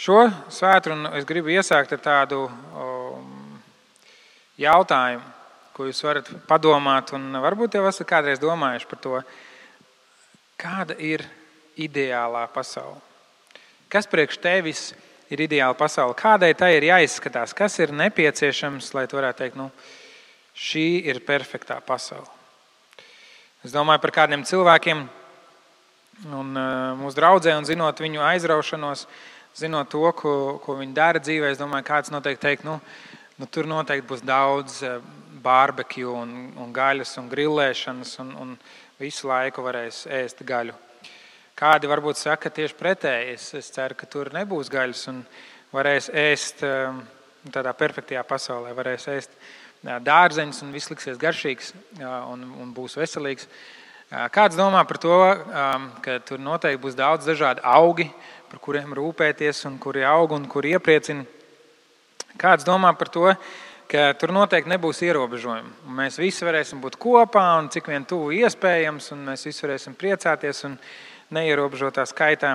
Šo svētdienu es gribu iesākt ar tādu jautājumu, ko jūs varat padomāt, un varbūt jau esat kādreiz domājuši par to, kāda ir ideālā pasaule. Kas priekš tevis ir ideāla pasaule? Kādai tai ir jāizskatās? Kas ir nepieciešams, lai tu varētu teikt, šī ir perfektā pasaule? Es domāju par kādiem cilvēkiem un mūsu draudzē, un zinot viņu aizraušanos, zinot to, ko viņi dara dzīvē, es domāju, kāds noteikti teikt, tur noteikti būs daudz barbecue un gaļas un grillēšanas un visu laiku varēs ēst gaļu. Kādi varbūt saka tieši pretēji. Es ceru, ka tur nebūs gaļas un varēs ēst tādā perfektajā pasaulē, varēs ēst dārzeņus un viss liksies garšīgs un būs veselīgs. Kāds domā par to, ka tur noteikti būs daudz dažādi augi, par kuriem rūpēties un kuri aug un kuri iepriecina. Kāds domā par to, ka tur noteikti nebūs ierobežojumi. Mēs visi varēsim būt kopā un cik vien tuvu iespējams, un mēs visi varēsim priecāties un neierobežotā skaitā.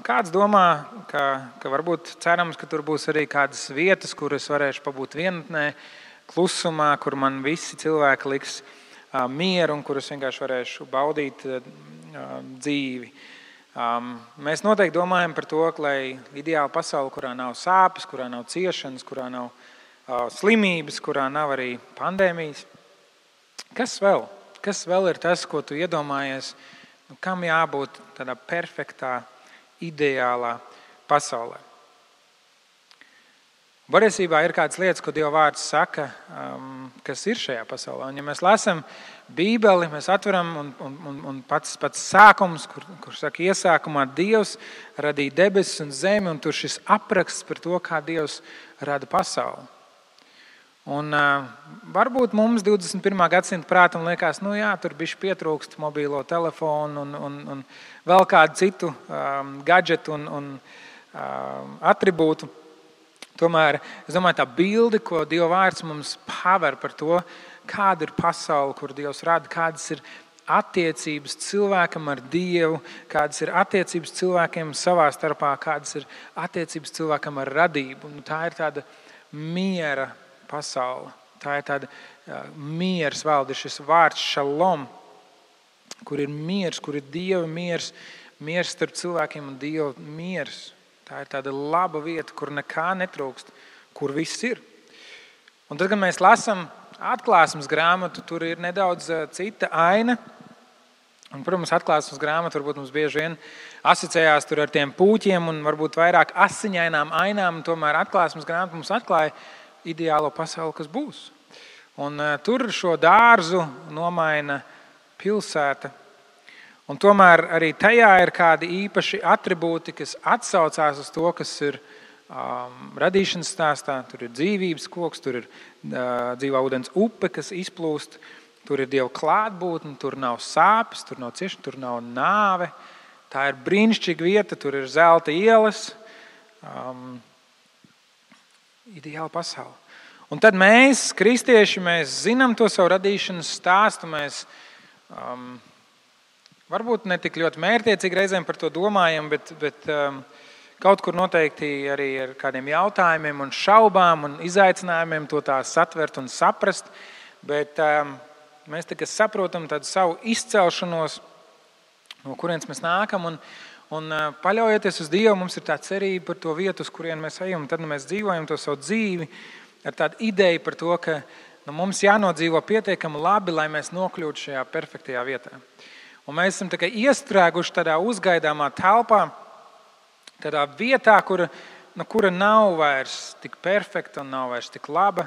Kāds domā, ka varbūt cerams, ka tur būs arī kādas vietas, kur es varēšu pabūt vienatnē, klusumā, kur man visi cilvēki liks mieru un kur es vienkārši varēšu baudīt dzīvi. Mēs noteikti domājam par to, lai ideāla pasaule, kurā nav sāpes, kurā nav ciešanas, kurā nav slimības, kurā nav arī pandēmijas. Kas vēl? Kas vēl ir tas, ko tu iedomājies, kam jābūt tādā perfektā, ideālā pasaulē? Patiesībā ir kādas lietas, ko Dieva vārds saka, kas ir šajā pasaulē. Un ja mēs lasām Bībeli, mēs atveram un pats sākums, kur saka iesākumā Dievs radīja debesis un zemi, un tur šis apraksts par to, kā Dievs rada pasauli. Un varbūt mums 21. gadsimta prātam liekas, tur bišķi pietrūkst mobīlo telefonu un vēl kādu citu gadžetu un atribūtu. Tomēr, es domāju, tā bilde, ko Dieva vārds mums paver par to, kāda ir pasaule, kur Dievs rada, kādas ir attiecības cilvēkam ar Dievu, kādas ir attiecības cilvēkiem savā starpā, kādas ir attiecības cilvēkam ar radību. Un tā ir tāda miera pasaule. Tā ir tāda miers valde, šis vārds šalom, kur ir miers, kur ir Dieva miers, miers starp cilvēkiem un Dieva miers. Tā ir tāda laba vieta, kur nekā netrūkst, kur viss ir. Un tad, kad mēs lasām atklāsmes grāmatu, tur ir nedaudz cita aina. Un, protams, atklāsmes grāmata varbūt mums bieži vien asociējās tur ar tiem pūķiem un varbūt vairāk asiņainām ainām. Un tomēr atklāsmes grāmata mums atklāja ideālo pasauli, kas būs. Un tur šo dārzu nomaina pilsēta. Un tomēr arī tajā ir kādi īpaši atribūti, kas atsaucās uz to, kas ir radīšanas stāstā. Tur ir dzīvības koks, tur ir dzīvā ūdens upe, kas izplūst. Tur ir Dieva klātbūtne, tur nav sāpes, tur nav ciešana, tur nav nāve. Tā ir brīnišķīga vieta, tur ir zelta ielas. Ideāla pasaule. Un tad mēs, kristieši, mēs zinām to savu radīšanas stāstu. Mēs varbūt ne tik ļoti mērķtiecīgi reizēm par to domājam, bet kaut kur noteikti arī ar kādiem jautājumiem un šaubām un izaicinājumiem to tā satvert un saprast. Bet mēs tikai saprotam tādu savu izcelšanos, no kurienes mēs nākam. Un paļaujoties uz Dievu, mums ir tā cerība par to vietu, uz kurien mēs ejam. Tad mēs dzīvojam to savu dzīvi ar tādu ideju par to, ka mums jānodzīvo pietiekami labi, lai mēs nokļūtu šajā perfektajā vietā. Un mēs esam tikai iestrēguši tādā uzgaidāmā telpā, tādā vietā, kura nav vairs tik perfekta un nav vairs tik laba,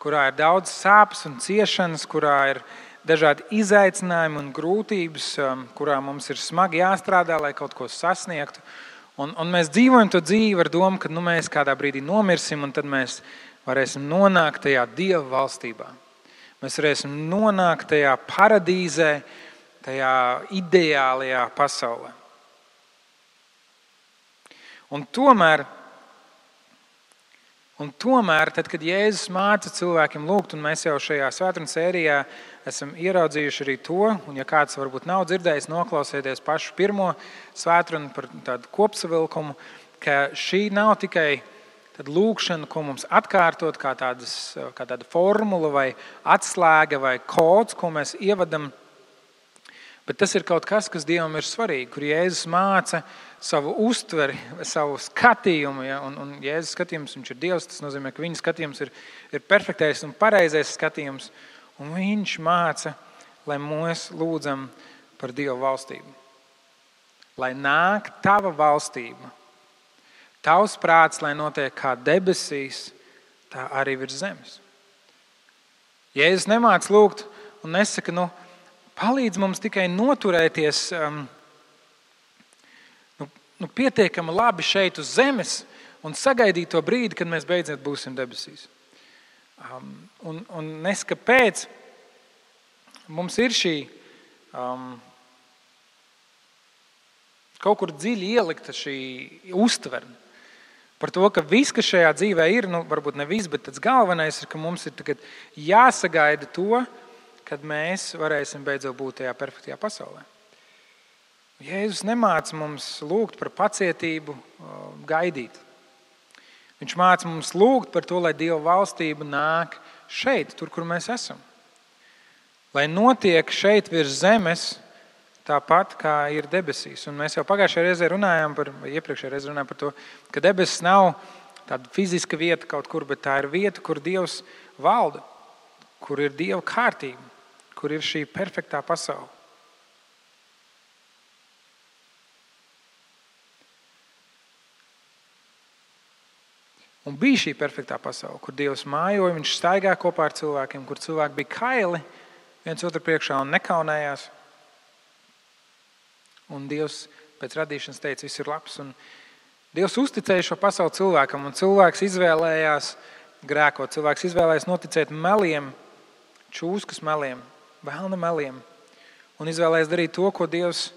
kurā ir daudz sāpes un ciešanas, kurā ir dažādi izaicinājumi un grūtības, kurā mums ir smagi jāstrādā, lai kaut ko sasniegtu. Un mēs dzīvojam to dzīvi ar domu, ka mēs kādā brīdī nomirsim, un tad mēs varēsim nonākt tajā Dieva valstībā. Mēs varēsim nonākt tajā paradīzē, tajā ideālajā pasaulē. Un tomēr, tad, kad Jēzus māca cilvēkiem lūgt, un mēs jau šajā svētdienas sērijā esam ieraudzījuši arī to, un ja kāds varbūt nav dzirdējis, noklausieties pašu pirmo svētdienu par tādu kopsavilkumu, ka šī nav tikai lūkšana, ko mums atkārtot kā tāda formula vai atslēga vai kods, ko mēs ievadam, bet tas ir kaut kas, kas Dievam ir svarīgi, kur Jēzus māca savu uztveri, savu skatījumu. Ja? Un Jēzus skatījums, viņš ir Dievs, tas nozīmē, ka viņa skatījums ir perfektais un pareizais skatījums. Un viņš māca, lai mēs lūdzam par Dieva valstību. Lai nāk tava valstība. Tavs prāts, lai notiek kā debesīs, tā arī virs zemes. Jēzus nemāc lūgt un nesaka, palīdz mums tikai noturēties pietiekami labi šeit uz zemes un sagaidīt to brīdi, kad mēs beidzot būsim debesīs. Un nesaka, kāpēc mums ir šī kaut kur dziļi ielikta šī uztvere. Par to, ka viss, kas šajā dzīvē ir, varbūt ne viss, bet tas galvenais ir, ka mums ir tagad jāsagaida to, kad mēs varēsim beidzot būt tajā perfektajā pasaulē. Jēzus nemāca mums lūgt par pacietību, gaidīt. Viņš māca mums lūgt par to, lai Dieva valstība nāk šeit, tur, kur mēs esam. Lai notiek šeit virs zemes, tāpat kā ir debesīs. Un mēs jau pagājušajā reizē runājām par to, ka debesis nav tāda fiziska vieta kaut kur, bet tā ir vieta, kur Dievs valda, kur ir Dieva kārtība, kur ir šī perfektā pasaule. Un bija šī perfektā pasaule, kur Dievs mājoja, viņš staigā kopā ar cilvēkiem, kur cilvēki bija kaili viens otru priekšā un nekaunējās. Un Dievs pēc radīšanas teica, viss ir labs. Un Dievs uzticēja šo pasauli cilvēkam, un cilvēks izvēlējās grēkot. Cilvēks izvēlējās noticēt meliem, čūskas meliem, vēlna meliem. Un izvēlējās darīt to, ko Dievs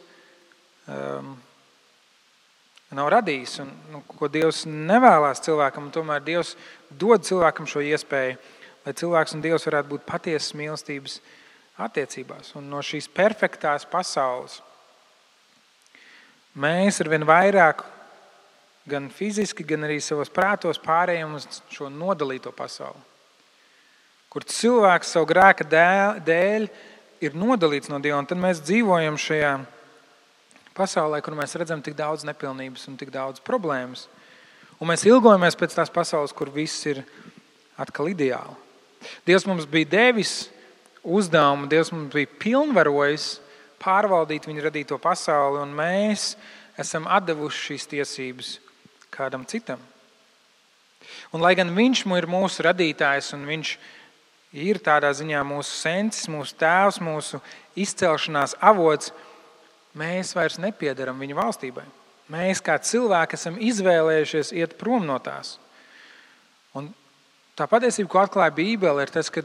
nav radījis, un ko Dievs nevēlās cilvēkam. Un tomēr Dievs dod cilvēkam šo iespēju, lai cilvēks un Dievs varētu būt patiesas mīlestības attiecībās. Un no šīs perfektās pasaules mēs arvien vairāk, gan fiziski, gan arī savos prātos pārējām uz šo nodalīto pasauli, kur cilvēks savu grēka dēļ ir nodalīts no Dieva. Un tad mēs dzīvojam šajā pasaulē, kur mēs redzam tik daudz nepilnības un tik daudz problēmas. Un mēs ilgojamies pēc tās pasaules, kur viss ir atkal ideāli. Dievs mums bija devis uzdevumu, Dievs mums bija pilnvarojis pārvaldīt viņa radīto pasauli, un mēs esam atdevuši šīs tiesības kādam citam. Un lai gan viņš ir mūsu radītājs, un viņš ir tādā ziņā mūsu sensis, mūsu tēvs, mūsu izcelšanās avots, mēs vairs nepiedaram viņa valstībai. Mēs kā cilvēki esam izvēlējušies iet prom no tās. Un tā patiesība, ko atklāja Bībele, ir tas, ka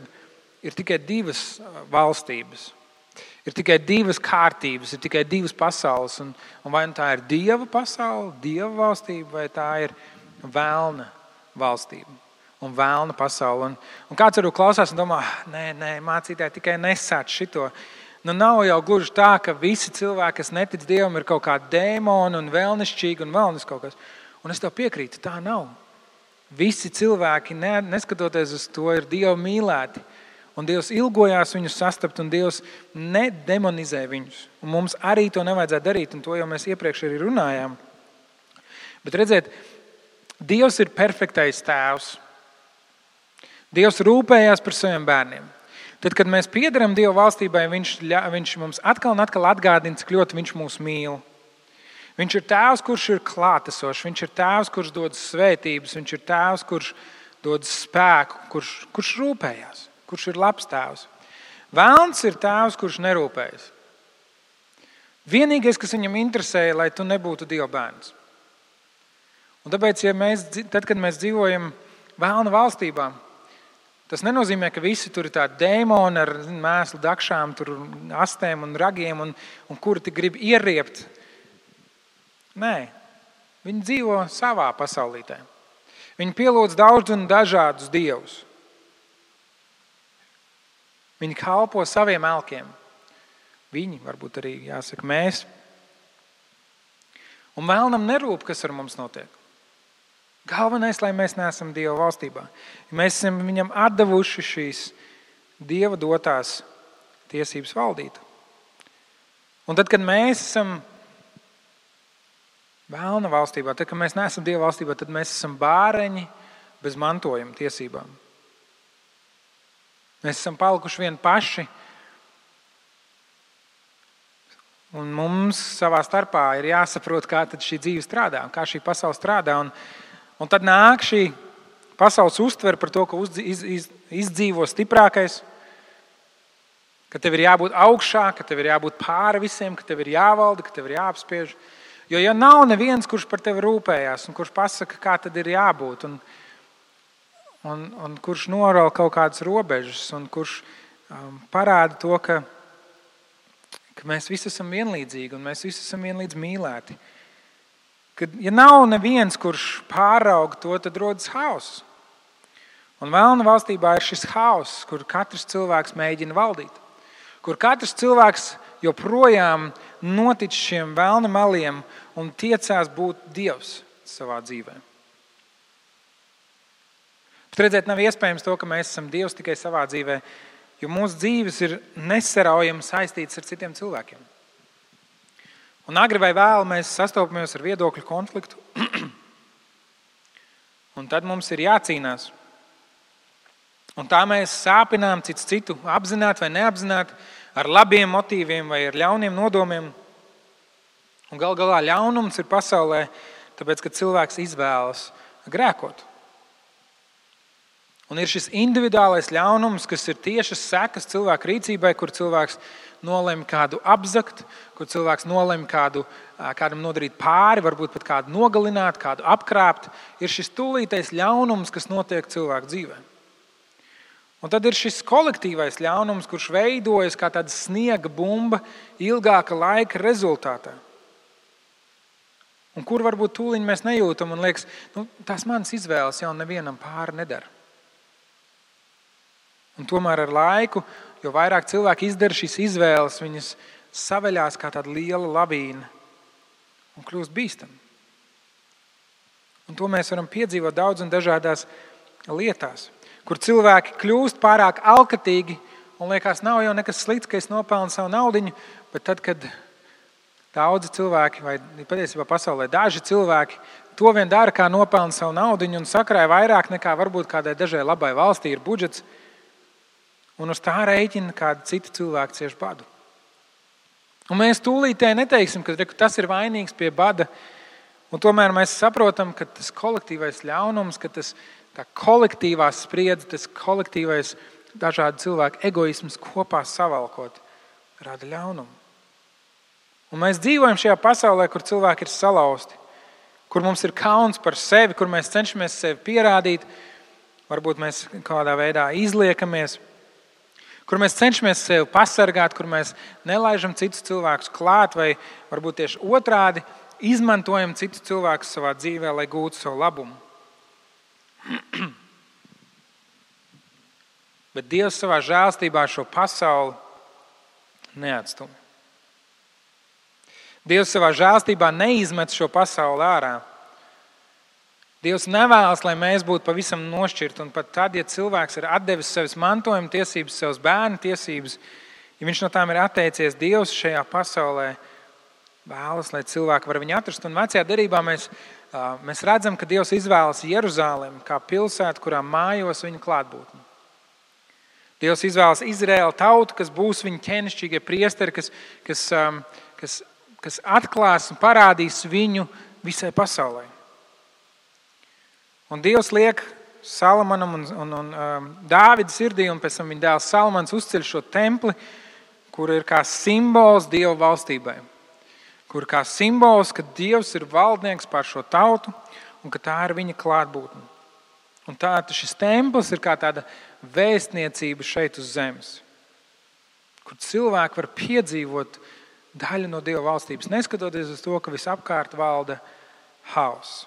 ir tikai divas valstības. Ir tikai divas kārtības, ir tikai divas pasaules. Un vai tā ir Dieva pasaule, Dieva valstība, vai tā ir vēlna valstība un vēlna pasaule. Un kāds varbūt klausās un domā, nē, mācītāji tikai nesāc šito. Nav jau gluži tā, ka visi cilvēki, kas netic Dievam, ir kaut kādi dēmoni un vēlnišķīgi un vēlnis kaut kas. Un es tev piekrītu, tā nav. Visi cilvēki, neskatoties uz to, ir Dieva mīlēti. Un Dievs ilgojās viņus sastapt, un Dievs nedemonizē viņus. Un mums arī to nevajadzētu darīt, un to jau mēs iepriekš arī runājām. Bet redziet, Dievs ir perfektais tēvs. Dievs rūpējās par saviem bērniem. Tad, kad mēs piederam Dieva valstībai, viņš mums atkal un atkal atgādina, cik ļoti viņš mūs mīl. Viņš ir tēvs, kurš ir klātesošs, viņš ir tēvs, kurš dod svētības, viņš ir tēvs, kurš dod spēku, kurš rūpējās. Kurš ir labs tēvs. Vēlns ir tēvs, kurš nerūpējas. Vienīgais, kas viņam interesēja, lai tu nebūtu Dieva bērns. Un tāpēc, kad mēs dzīvojam vēlna valstībā, tas nenozīmē, ka visi tur ir tādi dēmoni ar mēslu dakšām, tur astēm un ragiem, un kuri tik grib ieriept. Nē, viņi dzīvo savā pasaulītē. Viņi pielūdz daudz un dažādus dievus. Viņi kalpo saviem elkiem. Viņi, varbūt arī jāsaka mēs. Un vēlnam nerūp, kas ar mums notiek. Galvenais, lai mēs neesam Dieva valstībā. Ja mēs esam viņam atdevuši šīs Dieva dotās tiesības valdīt. Un tad, kad mēs esam vēlna valstībā, tad, kad mēs neesam Dieva valstībā, tad mēs esam bāreņi bez mantojuma tiesībām. Mēs esam palikuši vien paši. Un mums savā starpā ir jāsaprot, kā tad šī dzīve strādā, kā šī pasaule strādā. Un tad nāk šī pasaules uztvere par to, ka izdzīvo stiprākais, ka tev ir jābūt augšā, ka tev ir jābūt pāri visiem, ka tev ir jāvalda, ka tev ir jāapspiež. Jo ja nav neviens, kurš par tevi rūpējās un kurš pasaka, kā tad ir jābūt, un kurš noral kaut kādas robežas un kurš parāda to, ka mēs visi esam vienlīdzīgi un mēs visi esam vienlīdz mīlēti. Kad, ja nav neviens, kurš pāraug to, tad rodas hauss. Un vēlna valstībā ir šis hauss, kur katrs cilvēks mēģina valdīt. Kur katrs cilvēks joprojām notic šiem vēlna maliem un tiecās būt Dievs savā dzīvē. Bet redzēt, nav iespējams to, ka mēs esam Dievs tikai savā dzīvē, jo mūsu dzīves ir nesaraujami saistītas ar citiem cilvēkiem. Un agri vai vēl mēs sastopamies ar viedokļu konfliktu, un tad mums ir jācīnās. Un tā mēs sāpinām cits citu, apzināti vai neapzināti, ar labiem motīviem vai ar ļauniem nodomiem. Un gal galā ļaunums ir pasaulē, tāpēc, ka cilvēks izvēlas grēkot. Un ir šis individuālais ļaunums, kas ir tiešas sekas cilvēka rīcībai, kur cilvēks nolem kādu apzakt, kur cilvēks nolem kādam nodarīt pāri, varbūt pat kādu nogalināt, kādu apkrāpt. Ir šis tūlītais ļaunums, kas notiek cilvēku dzīvē. Un tad ir šis kolektīvais ļaunums, kurš veidojas kā tāda sniega bumba ilgāka laika rezultātā. Un kur varbūt tūliņ mēs nejūtam un liekas, tās manas izvēles jau nevienam pāri nedara. Un tomēr ar laiku, jo vairāk cilvēki izdara šīs izvēles, viņas saveļās kā tāda liela lavīna un kļūst bīstami. Un to mēs varam piedzīvot daudz un dažādās lietās, kur cilvēki kļūst pārāk alkatīgi un liekas, nav jau nekas slikts, ka es nopelnu savu naudiņu, bet tad, kad daudzi cilvēki, vai patiesībā pasaulē daži cilvēki, to vien dara, kā nopelna savu naudiņu un sakrāja vairāk nekā varbūt kādai dažai labai valstī ir budžets, un uz tā rēķina kādi citi cilvēki cieš badu. Un mēs tūlītē neteiksim, ka tas ir vainīgs pie bada, un tomēr mēs saprotam, ka tas kolektīvais ļaunums, ka tas tā kolektīvā spriedze, tas kolektīvais dažādu cilvēku egoisms kopā savalkot, rada ļaunumu. Un mēs dzīvojam šajā pasaulē, kur cilvēki ir salauzti, kur mums ir kauns par sevi, kur mēs cenšamies sevi pierādīt, varbūt mēs kādā veidā izliekamies, kur mēs cenšamies sevi pasargāt, kur mēs nelaižam citus cilvēkus klāt vai varbūt tieši otrādi izmantojam citus cilvēkus savā dzīvē, lai gūtu savu labumu. Bet Dievs savā žēlstībā šo pasauli neatstumj. Dievs savā žēlstībā neizmet šo pasauli ārā. Dievs nevēlas, lai mēs būtu pavisam nošķirti, un pat tad, ja cilvēks ir atdevis savas mantojuma tiesības, savas bērnu tiesības, ja viņš no tām ir atteicies, Dievs šajā pasaulē vēlas, lai cilvēki var viņu atrast. Un vecajā derībā mēs redzam, ka Dievs izvēlas Jeruzalemi kā pilsētu, kurā mājos viņa klātbūtne. Dievs izvēlas Izraēlu tautu, kas būs viņa ķēnišķīgie priesteri, kas atklās un parādīs viņu visai pasaulē. Un Dievs liek Salamonam un Dāvida sirdī, un pēc tam viņa dēls Salamons uzceļ šo templi, kur ir kā simbols Dieva valstībai. Kur kā simbols, ka Dievs ir valdnieks pār šo tautu un ka tā ir viņa klātbūtne. Un šis templis ir kā tāda vēstniecība šeit uz zemes, kur cilvēki var piedzīvot daļu no Dieva valstības, neskatoties uz to, ka visapkārt valda hauss.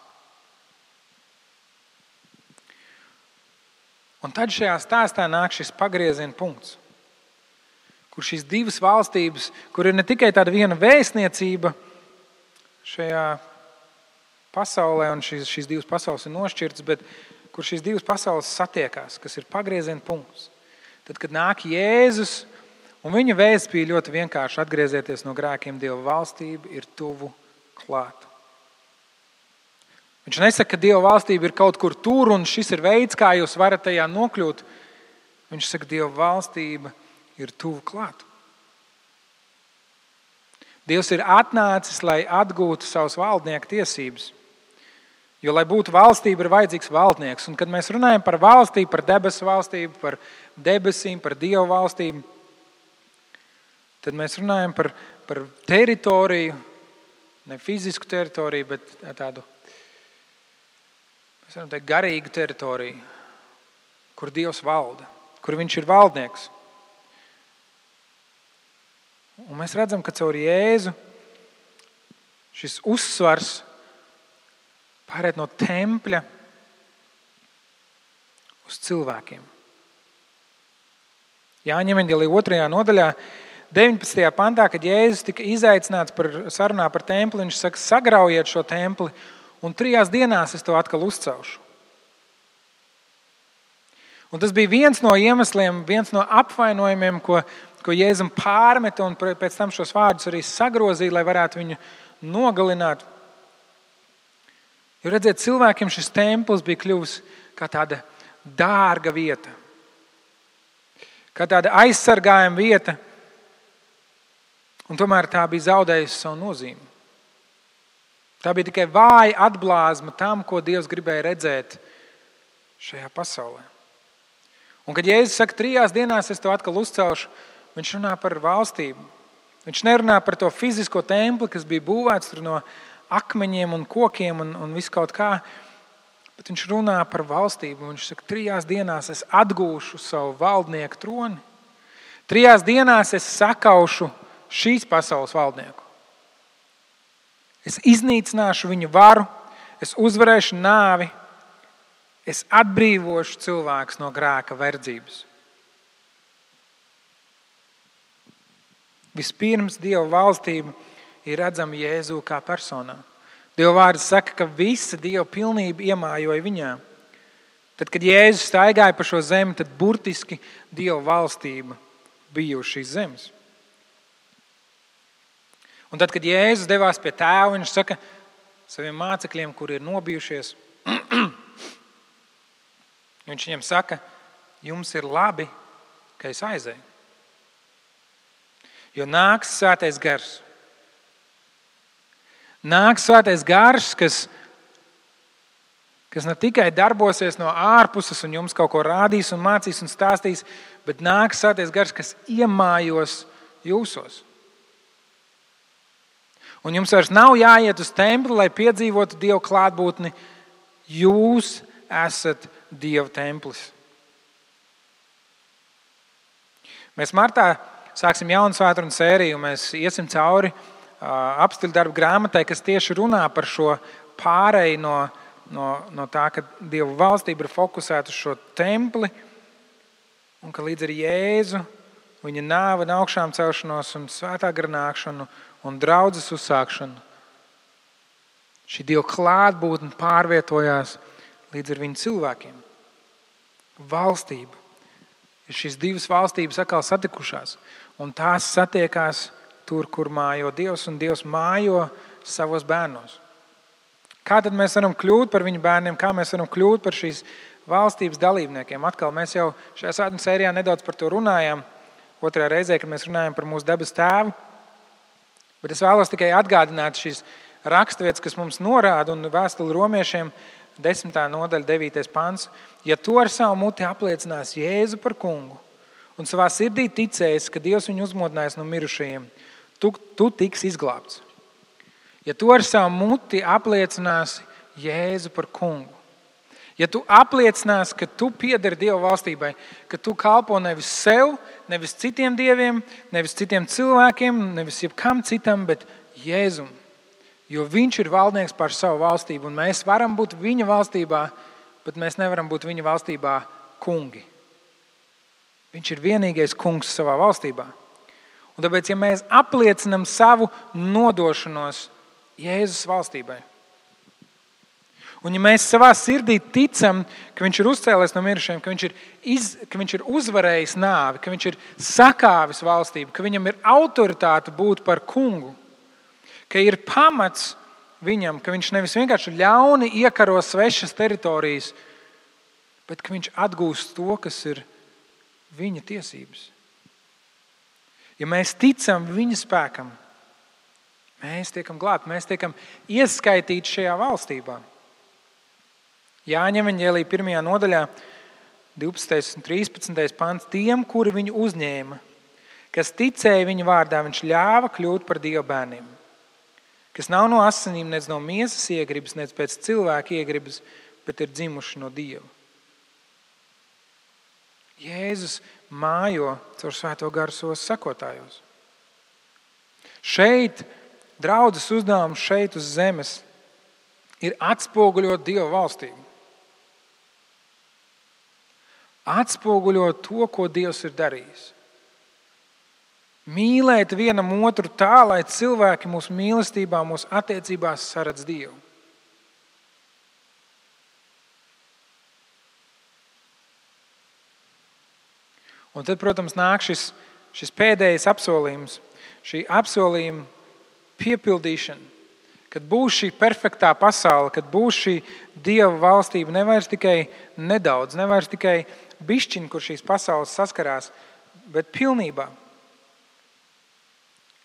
Un tad šajā stāstā nāk šis pagrieziena punkts, kur šīs divas valstības, kur ir ne tikai tāda viena vēstniecība šajā pasaulē, un šīs divas pasaules ir nošķirtas, bet kur šīs divas pasaules satiekās, kas ir pagrieziena punkts. Tad, kad nāk Jēzus, un viņa vēsts bija ļoti vienkārši: atgriezieties no grēkiem, Dieva valstība ir tuvu klāt. Viņš nesaka, ka Dieva valstība ir kaut kur tur, un šis ir veids, kā jūs varat tajā nokļūt. Viņš saka, Dieva valstība ir tuvu klāt. Dievs ir atnācis, lai atgūtu savas valdnieka tiesības. Jo, lai būtu valstība, ir vajadzīgs valdnieks. Un, kad mēs runājam par valstību, par debesu valstību, par debesīm, par Dieva valstību, tad mēs runājam par teritoriju, ne fizisku teritoriju, bet tādu, mēs varam teikt, garīgu teritoriju, kur Dievs valda, kur viņš ir valdnieks. Un mēs redzam, ka caur Jēzu šis uzsvars pāriet no tempļa uz cilvēkiem. Jāņa evaņģēlija 2. nodaļā, 19. pantā, kad Jēzus tika izaicināts sarunā par templi, viņš saka, sagraujiet šo templi, un 3 dienās es to atkal uzcelšu. Un tas bija viens no iemesliem, viens no apvainojumiem, ko Jēzum pārmeta, un pēc tam šos vārdus arī sagrozīja, lai varētu viņu nogalināt. Jo redziet, cilvēkiem šis templis bija kļuvis kā tāda dārga vieta, kā tāda aizsargājama vieta, un tomēr tā bija zaudējusi savu nozīmi. Tā bija tikai vāja atblāzma tam, ko Dievs gribēja redzēt šajā pasaulē. Un kad Jēzus saka, 3 dienās es to atkal uzcelšu, viņš runā par valstību. Viņš nerunā par to fizisko templi, kas bija būvēts no akmeņiem un kokiem un visu kaut kā, bet viņš runā par valstību. Viņš saka, 3 dienās es atgūšu savu valdnieku troni. 3 dienās es sakaušu šīs pasaules valdnieku. Es iznīcināšu viņu varu, es uzvarēšu nāvi, es atbrīvošu cilvēkus no grēka verdzības. Vispirms Dieva valstība ir redzama Jēzū kā personā. Dieva vārds saka, ka visa Dieva pilnība iemājoja viņā. Tad, kad Jēzus staigāja pa šo zemi, tad burtiski Dieva valstība bija uz šīs zemes. Un tad, kad Jēzus devās pie tēva, viņš saka saviem mācekļiem, kuri ir nobijušies, viņš viņiem saka, jums ir labi, ka es aizēju. Jo nāks svētais gars. Nāks svētais gars, kas ne tikai darbosies no ārpuses un jums kaut ko rādīs un mācīs un stāstīs, bet nāks svētais gars, kas iemājos jūsos. Un jums vairs nav jāiet uz templi, lai piedzīvotu Dieva klātbūtni. Jūs esat Dieva templis. Mēs martā sāksim jaunu svētdienu sēriju, mēs iesim cauri apstiļu darbu grāmatai, kas tieši runā par šo pāreju no tā, ka Dieva valstība ir fokusēta uz šo templi, un ka līdz ar Jēzu, viņa nāvi un augšām celšanos un svētā gara nākšanu un draudzes uzsākšanu, šī Dieva klātbūtne pārvietojās līdz ar viņu cilvēkiem. Valstība. Ir šīs divas valstības atkal satikušās, un tās satiekās tur, kur mājo Dievs, un Dievs mājo savos bērnos. Kā tad mēs varam kļūt par viņu bērniem, kā mēs varam kļūt par šīs valstības dalībniekiem? Atkal mēs jau šajā svētdienas sērijā nedaudz par to runājām, 2. reizē, kad mēs runājam par mūsu debes tēvu, bet es vēlos tikai atgādināt šīs raksturvietas, kas mums norāda, un vēstuli romiešiem 10. nodaļa, 9. pants. Ja tu ar savu muti apliecinās Jēzu par kungu un savā sirdī ticēs, ka Dievs viņu uzmodinājis no mirušajiem, tu tiks izglābts. Ja tu ar savu muti apliecināsi Jēzu par kungu, ja tu apliecinās, ka tu piederi Dieva valstībai, ka tu kalpo nevis sev, nevis citiem dieviem, nevis citiem cilvēkiem, nevis jebkam citam, bet Jēzum. Jo viņš ir valdnieks pār savu valstību, un mēs varam būt viņa valstībā, bet mēs nevaram būt viņa valstībā kungi. Viņš ir vienīgais kungs savā valstībā. Un tāpēc, ja mēs apliecinam savu nodošanos Jēzus valstībai, Un ja mēs savā sirdī ticam, ka viņš ir uzcēlies no mirušajiem, ka viņš ir uzvarējis nāvi, ka viņš ir sakāvis valstību, ka viņam ir autoritāte būt par kungu, ka ir pamats viņam, ka viņš nevis vienkārši ļauni iekaro svešas teritorijas, bet ka viņš atgūst to, kas ir viņa tiesības. Ja mēs ticam viņa spēkam, mēs tiekam glābti, mēs tiekam ieskaitīti šajā valstībā. Jāņa evaņģēlija 1. nodaļā, 12. un 13. pants, tiem, kuri viņu uzņēma, kas ticēja viņa vārdā, viņš ļāva kļūt par Dieva bērniem, kas nav no asinīm, nec no miesas iegribas, nec pēc cilvēka iegribas, bet ir dzimuši no Dieva. Jēzus mājo caur Svēto garu savos sekotājos. Šeit, draudzes uzdevums šeit uz zemes, ir atspoguļot Dieva valstību. Atspoguļot to, ko Dievs ir darījis. Mīlēt vienam otru tā, lai cilvēki mūsu mīlestībā, mūsu attiecībās saredz Dievu. Un tad, protams, nāk šis pēdējais apsolījums, šī apsolījuma piepildīšana, kad būs šī perfektā pasaule, kad būs šī Dieva valstība, nevairs tikai nedaudz, nevairs tikai bišķiņ, kur šīs pasaules saskarās, bet pilnībā.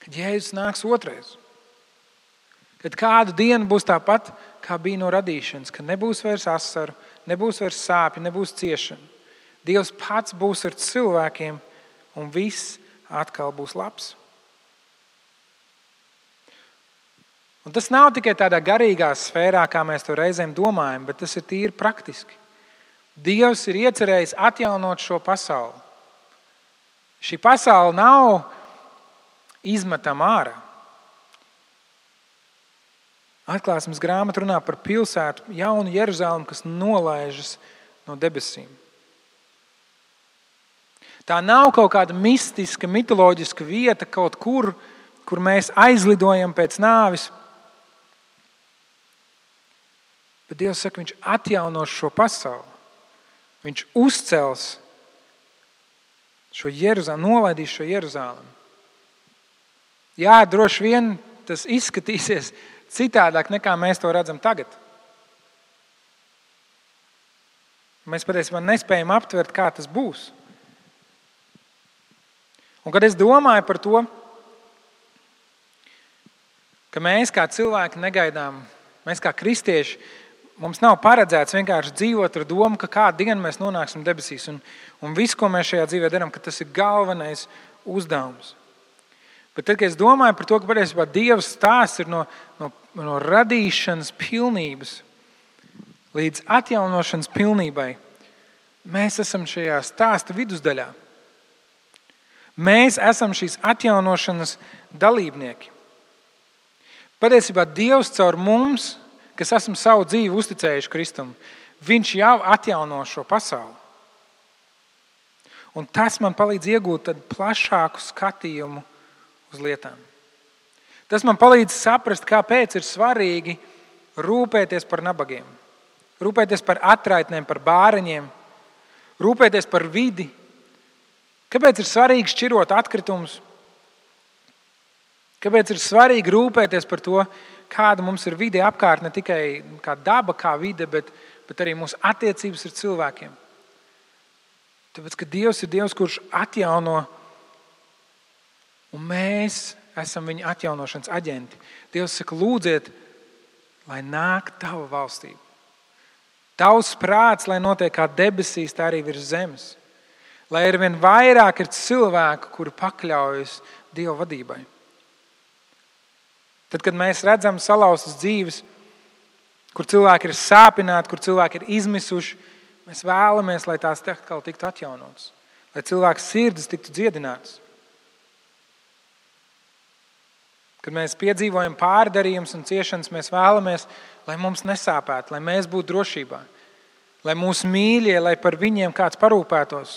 Kad Jēzus nāks otrais. Kad kādu dienu būs tāpat, kā bija no radīšanas, kad nebūs vairs asaru, nebūs vairs sāpju, nebūs ciešana. Dievs pats būs ar cilvēkiem un viss atkal būs labs. Un tas nav tikai tādā garīgā sfērā, kā mēs to reizēm domājam, bet tas ir tīri praktiski. Dievs ir iecerējis atjaunot šo pasauli. Šī pasaule nav izmetama ārā. Atklāsmes grāmata runā par pilsētu, jaunu Jeruzalemi, kas nolaižas no debesīm. Tā nav kaut kāda mistiska, mitoloģiska vieta kaut kur mēs aizlidojam pēc nāvis. Bet Dievs saka, viņš atjaunos šo pasauli. Viņš uzcels šo Jeruzalemi, nolaidīs šo Jeruzalemi. Jā, droši vien tas izskatīsies citādāk, nekā mēs to redzam tagad. Mēs patiesībā nespējam aptvert, kā tas būs. Un kad es domāju par to, ka mēs kā cilvēki negaidām, mēs kā kristieši, mums nav paredzēts vienkārši dzīvot ar domu, ka kādu dienu mēs nonāksim debesīs. Un viss, ko mēs šajā dzīvē darām, ka tas ir galvenais uzdevums. Bet tad, kad es domāju par to, ka patiesībā Dieva stāsts ir no radīšanas pilnības līdz atjaunošanas pilnībai, mēs esam šajā stāsta vidusdaļā. Mēs esam šīs atjaunošanas dalībnieki. Patiesībā Dievs caur mums, kas esam savu dzīvi uzticējuši Kristum, viņš jau atjauno šo pasauli. Un tas man palīdz iegūt tad plašāku skatījumu uz lietām. Tas man palīdz saprast, kāpēc ir svarīgi rūpēties par nabagiem, rūpēties par atraitnēm, par bāreņiem, rūpēties par vidi. Kāpēc ir svarīgi šķirot atkritumus? Kāpēc ir svarīgi rūpēties par to, kāda mums ir vide apkārt, ne tikai kā daba, kā vide, bet arī mūsu attiecības ar cilvēkiem? Tāpēc, ka Dievs ir Dievs, kurš atjauno, un mēs esam viņa atjaunošanas aģenti. Dievs saka, lūdziet, lai nāk tava valstība. Tavs prāts, lai notiek kā debesīs, tā arī virs zemes. Lai ar vien vairāk ir cilvēku, kuri pakļaujas Dieva vadībai. Tad, kad mēs redzam salauztas dzīves, kur cilvēki ir sāpināti, kur cilvēki ir izmisuši, mēs vēlamies, lai tās atkal tiktu atjaunotas, lai cilvēku sirdis tiktu dziedinātas. Kad mēs piedzīvojam pārdarījumus un ciešanas, mēs vēlamies, lai mums nesāpētu, lai mēs būtu drošībā, lai mūsu mīļie, lai par viņiem kāds parūpētos.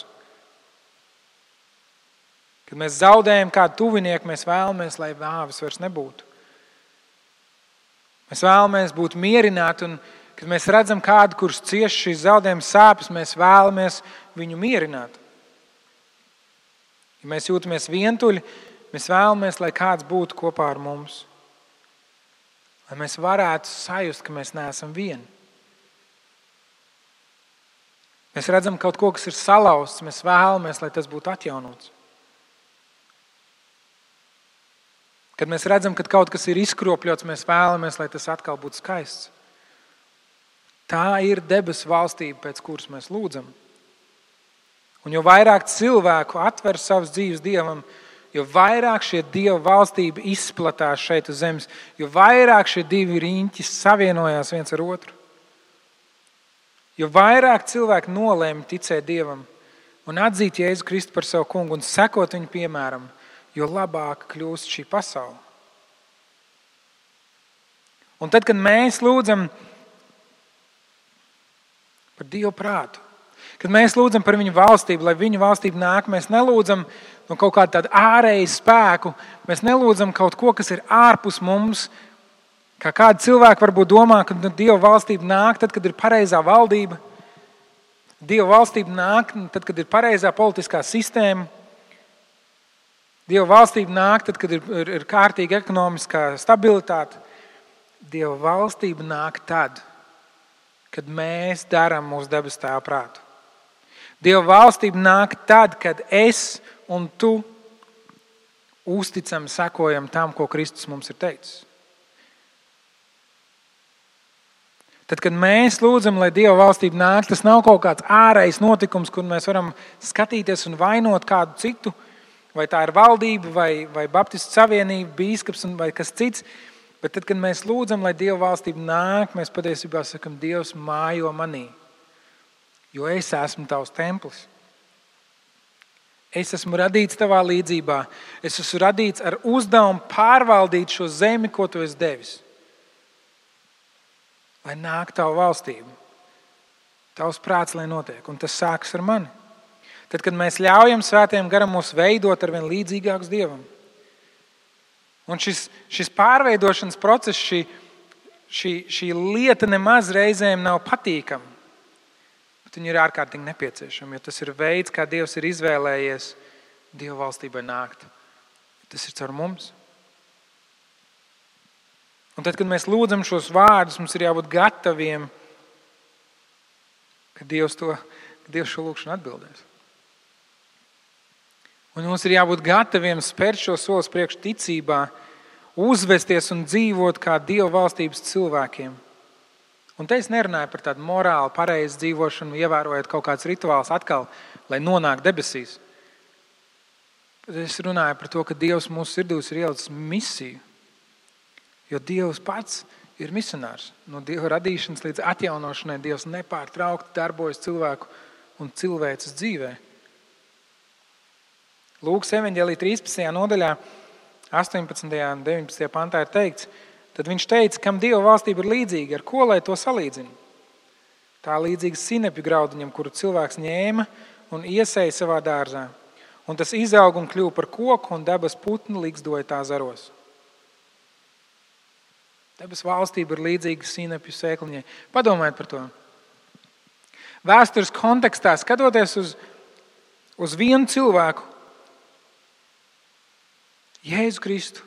Kad mēs zaudējam kādu tuvinieku, mēs vēlamies, lai nāves vairs nebūtu. Mēs vēlamies būt mierināti un Kad mēs redzam kādu, kurš cieš šīs zaudējuma sāpes, mēs vēlamies viņu mierināt. Ja mēs jūtamies vientuļi, mēs vēlamies, lai kāds būtu kopā ar mums. Lai mēs varētu sajust, ka mēs neesam vieni. Mēs redzam kaut ko, kas ir salauzts, mēs vēlamies, lai tas būtu atjaunots. Kad mēs redzam, ka kaut kas ir izkropļots, mēs vēlamies, lai tas atkal būtu skaists. Tā ir debesu valstība, pēc kuras mēs lūdzam. Un jo vairāk cilvēku atver savas dzīves Dievam, jo vairāk šie Dieva valstība izplatās šeit uz zemes, jo vairāk šie divi riņķi savienojās viens ar otru. Jo vairāk cilvēki nolēma ticēt Dievam un atzīt Jēzu Kristu par savu kungu un sekot viņu piemēram, jo labāk kļūst šī pasaule. Un tad, kad mēs lūdzam par Dievu prātu, kad mēs lūdzam par viņu valstību, lai viņu valstība nāk, mēs nelūdzam no kaut kāda tāda ārēja spēku, mēs nelūdzam kaut ko, kas ir ārpus mums, kā kādi cilvēki varbūt domā, ka Dieva valstība nāk tad, kad ir pareizā valdība. Dieva valstība nāk tad, kad ir pareizā politiskā sistēma. Dieva valstība nāk tad, kad ir kārtīga ekonomiskā stabilitāte. Dieva valstība nāk tad, kad mēs darām mūsu debes Tēva prātu. Dieva valstība nāk tad, kad es un tu uzticam, sekojam tam, ko Kristus mums ir teicis. Tad, kad mēs lūdzam, lai Dieva valstība nāk, tas nav kaut kāds ārējs notikums, kur mēs varam skatīties un vainot kādu citu, vai tā ir valdība, vai Baptistu savienība, bīskaps vai kas cits. Bet tad, kad mēs lūdzam, lai Dieva valstība nāk, mēs patiesībā sakam, Dievs mājo manī, jo es esmu tavs templis. Es esmu radīts tavā līdzībā. Es esmu radīts ar uzdevumu pārvaldīt šo zemi, ko tu esi devis. Lai nāk tavu valstību. Tavs prāts, lai notiek. Un tas sākas ar mani. Tad, kad mēs ļaujam Svētajam garam mūs veidot ar vien līdzīgākus Dievam. Un šis pārveidošanas process, šī lieta nemaz reizēm nav patīkama. Bet viņa ir ārkārtīgi nepieciešama, jo tas ir veids, kā Dievs ir izvēlējies Dieva valstībai nākt. Tas ir caur mums. Un tad, kad mēs lūdzam šos vārdus, mums ir jābūt gataviem, ka Dievs šo lūgšanu atbildēs. Un mums ir jābūt gataviem spērt šo solis priekš ticībā, uzvesties un dzīvot kā Dieva valstības cilvēkiem. Un te es nerunāju par tādu morāli pareizu dzīvošanu, ievērojot kaut kāds rituāls atkal, lai nonāk debesīs. Bet es runāju par to, ka Dievs mūsu sirdīs ir ielicis misiju. Jo Dievs pats ir misionārs. No Dieva radīšanas līdz atjaunošanai Dievs nepārtraukti darbojas cilvēku un cilvēces dzīvē. Lūkas evaņģēlija 13. nodaļā, 18. un 19. pantā ir teikts, tad viņš teica, kam Dieva valstība ir līdzīga, ar ko lai to salīdzina? Tā līdzīga sinepju graudiņam, kuru cilvēks ņēma un iesēja savā dārzā. Un tas izaug un kļuva par koku, un debes putni līgzdoja tā zaros. Debes valstība ir līdzīga sinepju sēkliņai. Padomājiet par to. Vēstures kontekstā, skatoties uz vienu cilvēku, Jēzu Kristu,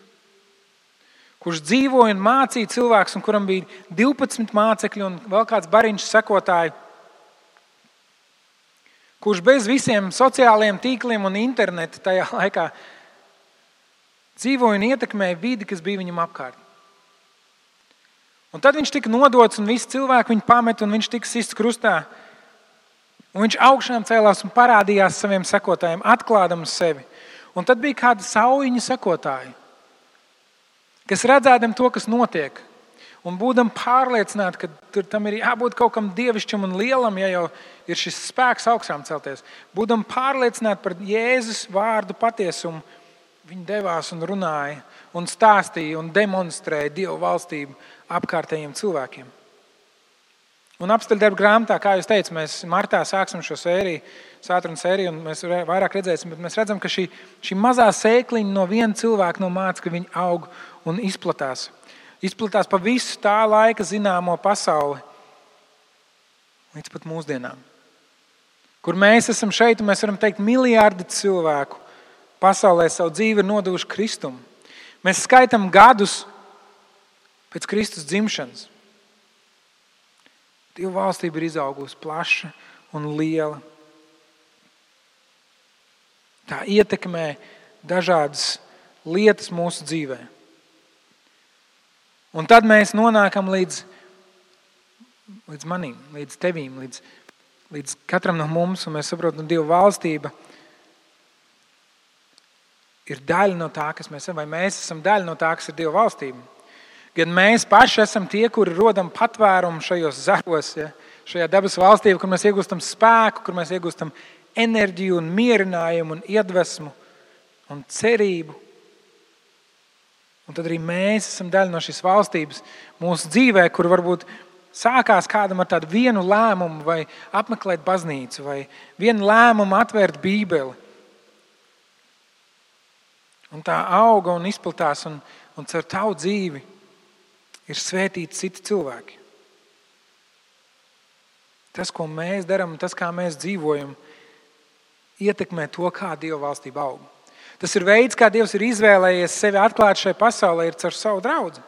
kurš dzīvoja un mācīja cilvēks, un kuram bija 12 mācekļi un vēl kāds bariņš sekotāji, kurš bez visiem sociālajiem tīkliem un internetu tajā laikā dzīvoja un ietekmēja vidi, kas bija viņam apkārt. Un tad viņš tika nodots, un visi cilvēki viņu pamet, un viņš tika sists krustā. Un viņš augšām cēlās un parādījās saviem sekotājiem, atklādams sevi. Un tad bija kāda saujiņa sekotāji, kas redzēdam to, kas notiek, un būdam pārliecināti, ka tam ir jābūt kaut kam dievišķam un lielam, ja jau ir šis spēks augšām celties. Būdam pārliecināti par Jēzus vārdu patiesumu, viņi devās un runāja, un stāstīja un demonstrēja Dievu valstību apkārtējiem cilvēkiem. Un apstaļdarba grāmatā, kā jūs teicu, mēs martā sāksim šo sēriju, sātrunu sēriju, un mēs vairāk redzēsim, bet mēs redzam, ka šī mazā sēkliņa no viena cilvēka no māca, ka viņi aug un izplatās. Izplatās pa visu tā laika zināmo pasauli. līdz pat mūsdienām. Kur mēs esam šeit, un mēs varam teikt, miljardi cilvēku pasaulē savu dzīvi ir nodevuši Kristumu. Mēs skaitam gadus pēc Kristus dzimšanas. Dieva valstība ir izaugusi plaša un liela. Tā ietekmē dažādas lietas mūsu dzīvē. Un tad mēs nonākam līdz manim, līdz tevīm, līdz katram no mums, un mēs saprotam, Dieva valstība ir daļa no tā, kas mēs esam, vai mēs esam daļa no tā, kas ir Dieva valstība. Gan mēs paši esam tie, kuri rodam patvērumu šajos zaros, ja, šajā dabas valstībā, kur mēs iegūstam spēku, kur mēs iegūstam enerģiju un mierinājumu un iedvesmu un cerību. Un tad arī mēs esam daļa no šīs valstības mūsu dzīvē, kur varbūt sākās kādam ar tādu vienu lēmumu vai apmeklēt baznīcu vai vienu lēmumu atvērt Bībeli. Un tā auga un izplatās un caur tavu dzīvi ir svētīti citi cilvēki. Tas, ko mēs darām un tas, kā mēs dzīvojam, ietekmē to, kā Dieva valstība aug. Tas ir veids, kā Dievs ir izvēlējies sevi atklāt šai pasaulē, ir caur savu draudzi.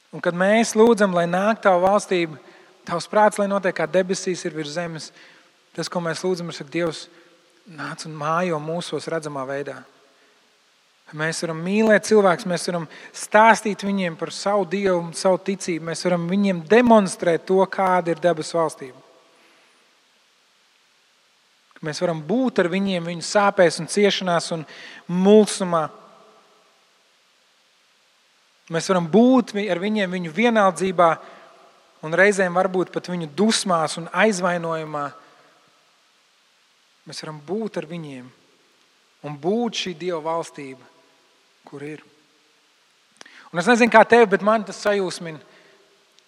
Un kad mēs lūdzam, lai nāk tavu valstību, tavs prāts, lai notiek kā debesīs ir virs zemes, tas, ko mēs lūdzam, ir, ka Dievs nāc un mājo mūsos redzamā veidā. Mēs varam mīlēt cilvēkus, mēs varam stāstīt viņiem par savu Dievu, savu ticību, mēs varam viņiem demonstrēt to, kāda ir debes valstība. Mēs varam būt ar viņiem viņu sāpēs un ciešanās un mulsumā. Mēs varam būt ar viņiem viņu vienaldzībā un reizēm varbūt pat viņu dusmās un aizvainojumā. Mēs varam būt ar viņiem un būt šī Dieva valstība, kur ir. Un es nezinu, kā tevi, bet man tas sajūsmina,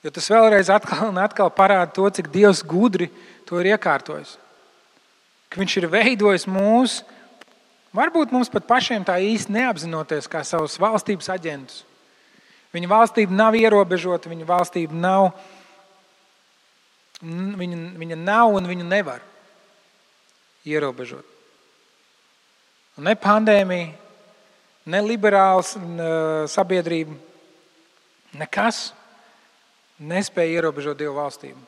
jo tas vēlreiz atkal un atkal parāda to, cik Dievs gudri to ir iekārtojis. Ka viņš ir veidojis mūs, varbūt mums pat pašiem tā īsti neapzinoties, kā savus valstības aģentus. Viņa valstība nav ierobežota, viņa valstība nav, viņa nav un viņu nevar ierobežot. Un ne pandēmija, ne liberāls sabiedrība, nekas nespēja ierobežot Dieva valstību.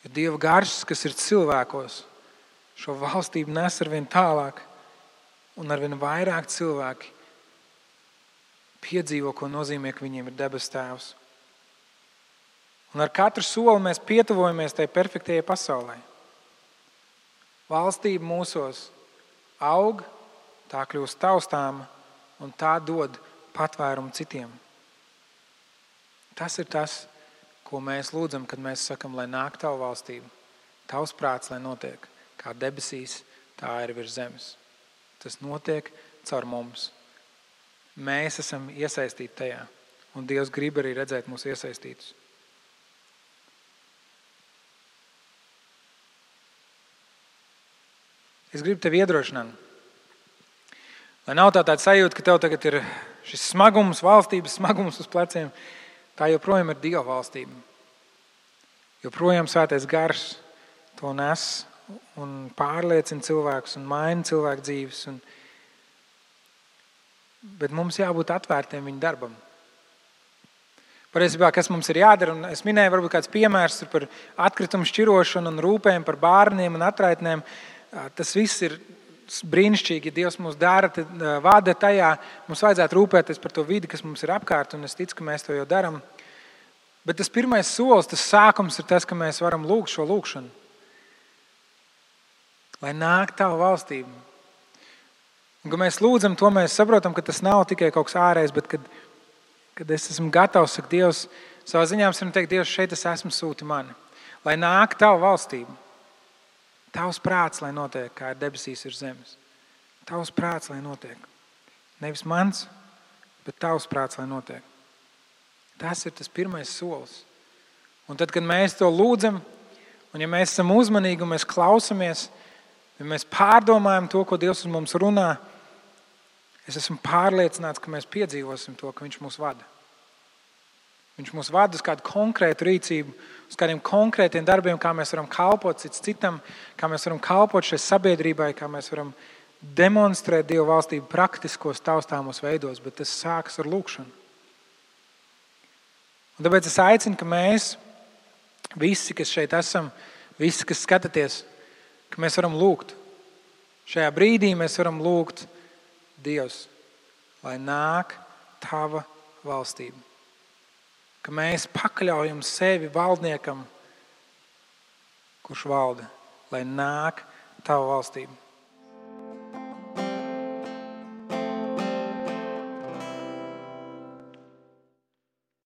Jo Dieva gars, kas ir cilvēkos, šo valstību nes arvien tālāk un arvien vairāk cilvēki piedzīvo, ko nozīmē, ka viņiem ir debes tēvs. Un ar katru soli mēs pietuvojamies tai perfektajai pasaulē. Valstība mūsos aug, tā kļūst taustāma un tā dod patvērumu citiem. Tas ir tas, ko mēs lūdzam, kad mēs sakam, lai nāk tavu valstību. Tavs prāts, lai notiek kā debesīs, tā ir virs zemes. Tas notiek caur mums. Mēs esam iesaistīti tajā, un Dievs grib arī redzēt mūs iesaistītus. Es gribu tevi iedrošināt, lai nav tāda sajūta, ka tev tagad ir šis smagums, valstības smagums uz pleciem, tā joprojām ir Dieva valstība. Joprojām Svētais Gars to nes un pārliecina cilvēkus un maina cilvēku dzīves. Bet mums jābūt atvērtiem viņa darbam. Patiesībā, kas mums ir jādara, un es minēju varbūt kāds piemērs par atkritumu šķirošanu un rūpēm par bērniem un atraitnēm. Tas viss ir brīnišķīgi, ja Dievs mūs vada tajā. Mums vajadzētu rūpēties par to vidi, kas mums ir apkārt, un es ticu, ka mēs to jau daram. Bet tas pirmais solis, tas sākums ir tas, ka mēs varam lūgt šo lūgšanu. Lai nāk tava valstība. Un, kad mēs lūdzam to, mēs saprotam, ka tas nav tikai kaut kas ārējs, bet kad es esmu gatavs, saka Dievs, savā ziņā mēs varam teikt, Dievs, šeit es esmu, sūti mani. Lai nāk tava valstība. Tavs prāts, lai notiek, kā ir debesīs ir zemes. Tavs prāts, lai notiek. Nevis mans, bet tavs prāts, lai notiek. Tas ir tas pirmais solis. Un tad, kad mēs to lūdzam, un ja mēs esam uzmanīgi un mēs klausamies, ja mēs pārdomājam to, ko Dievs uz mums runā, es esmu pārliecināts, ka mēs piedzīvosim to, ka Viņš mūs vada. Viņš mūs vada uz kādu konkrētu rīcību, uz kādiem konkrētiem darbiem, kā mēs varam kalpot cits citam, kā mēs varam kalpot šai sabiedrībai, kā mēs varam demonstrēt Dieva valstību praktiskos, taustāmos veidos, bet tas sākas ar lūkšanu. Un tāpēc es aicinu, ka mēs, visi, kas šeit esam, visi, kas skatāties, ka mēs varam lūgt. Šajā brīdī mēs varam lūgt Dievs, lai nāk tava valstība. Ka mēs pakļaujam sevi valdniekam, kurš valda, lai nāk tava valstība.